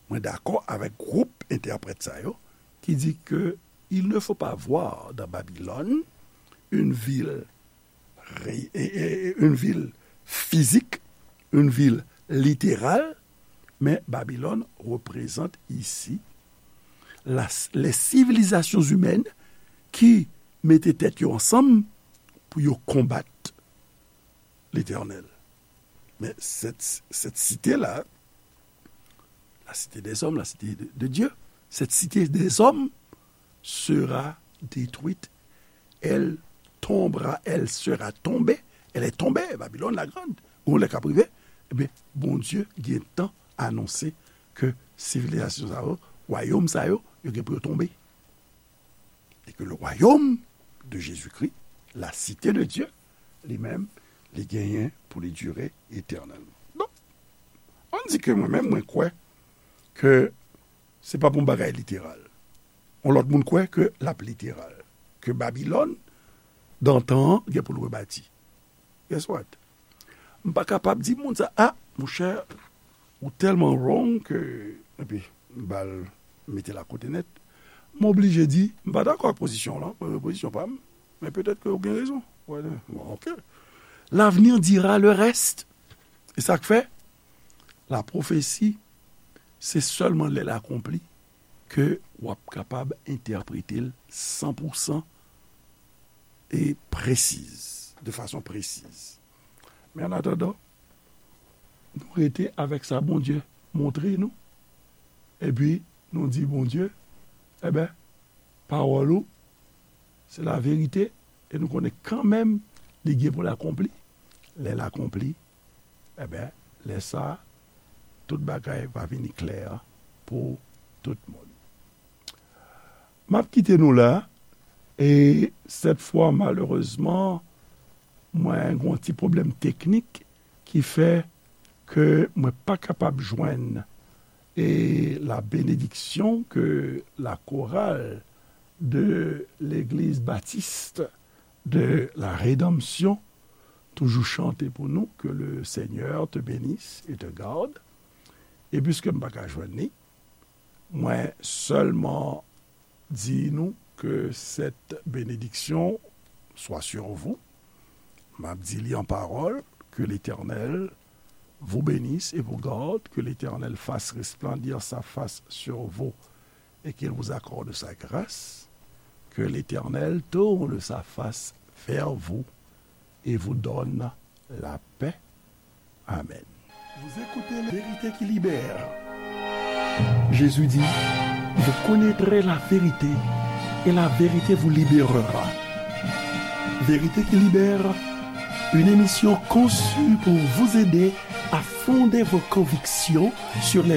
mwen dakò avèk gwoup entèprèt sa yo ki di ke il ne faut pas voir dans Babylone une ville ré- et- et- et une ville physique, une ville littérale, mais Babylone représente ici la, les civilisations humaines qui mete tèt yo ansanm pou yo konbat Letènèl. Men cette, cette cité-là, la cité des hommes, la cité de, de Dieu, cette cité des hommes sera détruite. Elle tombera, elle sera tombée. Elle est tombée, Babylone la Grande. Gon lè k ap rive, ebyen, Bondye gentan anonse ke sivilizasyon sa yo, wayòm sa yo, yo gen pou yo tonbe. E ke le royaume de Jésus-Christ, la cité de Dieu, li menm, li genyen pou li dire etènèlman. Donk, ann di ke mwen menm, mwen kwè ke se pa pou yon bagay literal. Yon lòt moun kwè ke l ap literal. Ke Babilòn, dan tan an, gen pou l rebati. Guess what? M pa kapab di moun sa, a, monchè, ou tèlman wrong ke, epi, m ba l mete l akote nèt. M oblije di, m pa dakò ak pozisyon w lan, mwen, pozisyon pa m, men petèt ke w gen rezon. Bon, ok. L'avenir dira le reste. E sa k fè, la pwofesi, se sèlman lè l akonpli ke w ap kapab entèprete l san pou san e presiz, de fason presiz. Men an atandan, nou rete avèk sa Bondye montre nou, epi nou di Bondye, enben, pawòl ou, se laverite, e nou konnen kanmenm li gen pou l akonpli. Lè l akonpli, enben, lè sa a, tout bagay va vini klè pou tout moun. M ap kite nou la, e sèt fwa, malerezman, mwen gen yon ti pwoblèm teknik ki fè ke mwen pa kapab jwenn, e, la bénédiction que la chorale de l'église baptiste de la Rédemption toujou chante pou nou, que le Seigneur te bénisse et te garde. E piske m pa ka jwenn li, mwen sèlman di nou que cette bénédiction soit sur vous. M ap di li an pawòl, que l'Éternel vous bénisse et vous garde, que l'Éternel fasse resplendir sa face sur vous et qu'il vous accorde sa grâce, que l'Éternel tourne sa face vers vous et vous donne la paix. Amen. Vous écoutez la vérité qui libère. Jésus dit, vous connaîtrez la vérité et la vérité vous libérera. Vérité qui libère, une émission conçue pour vous aider à fonder vos convictions sur les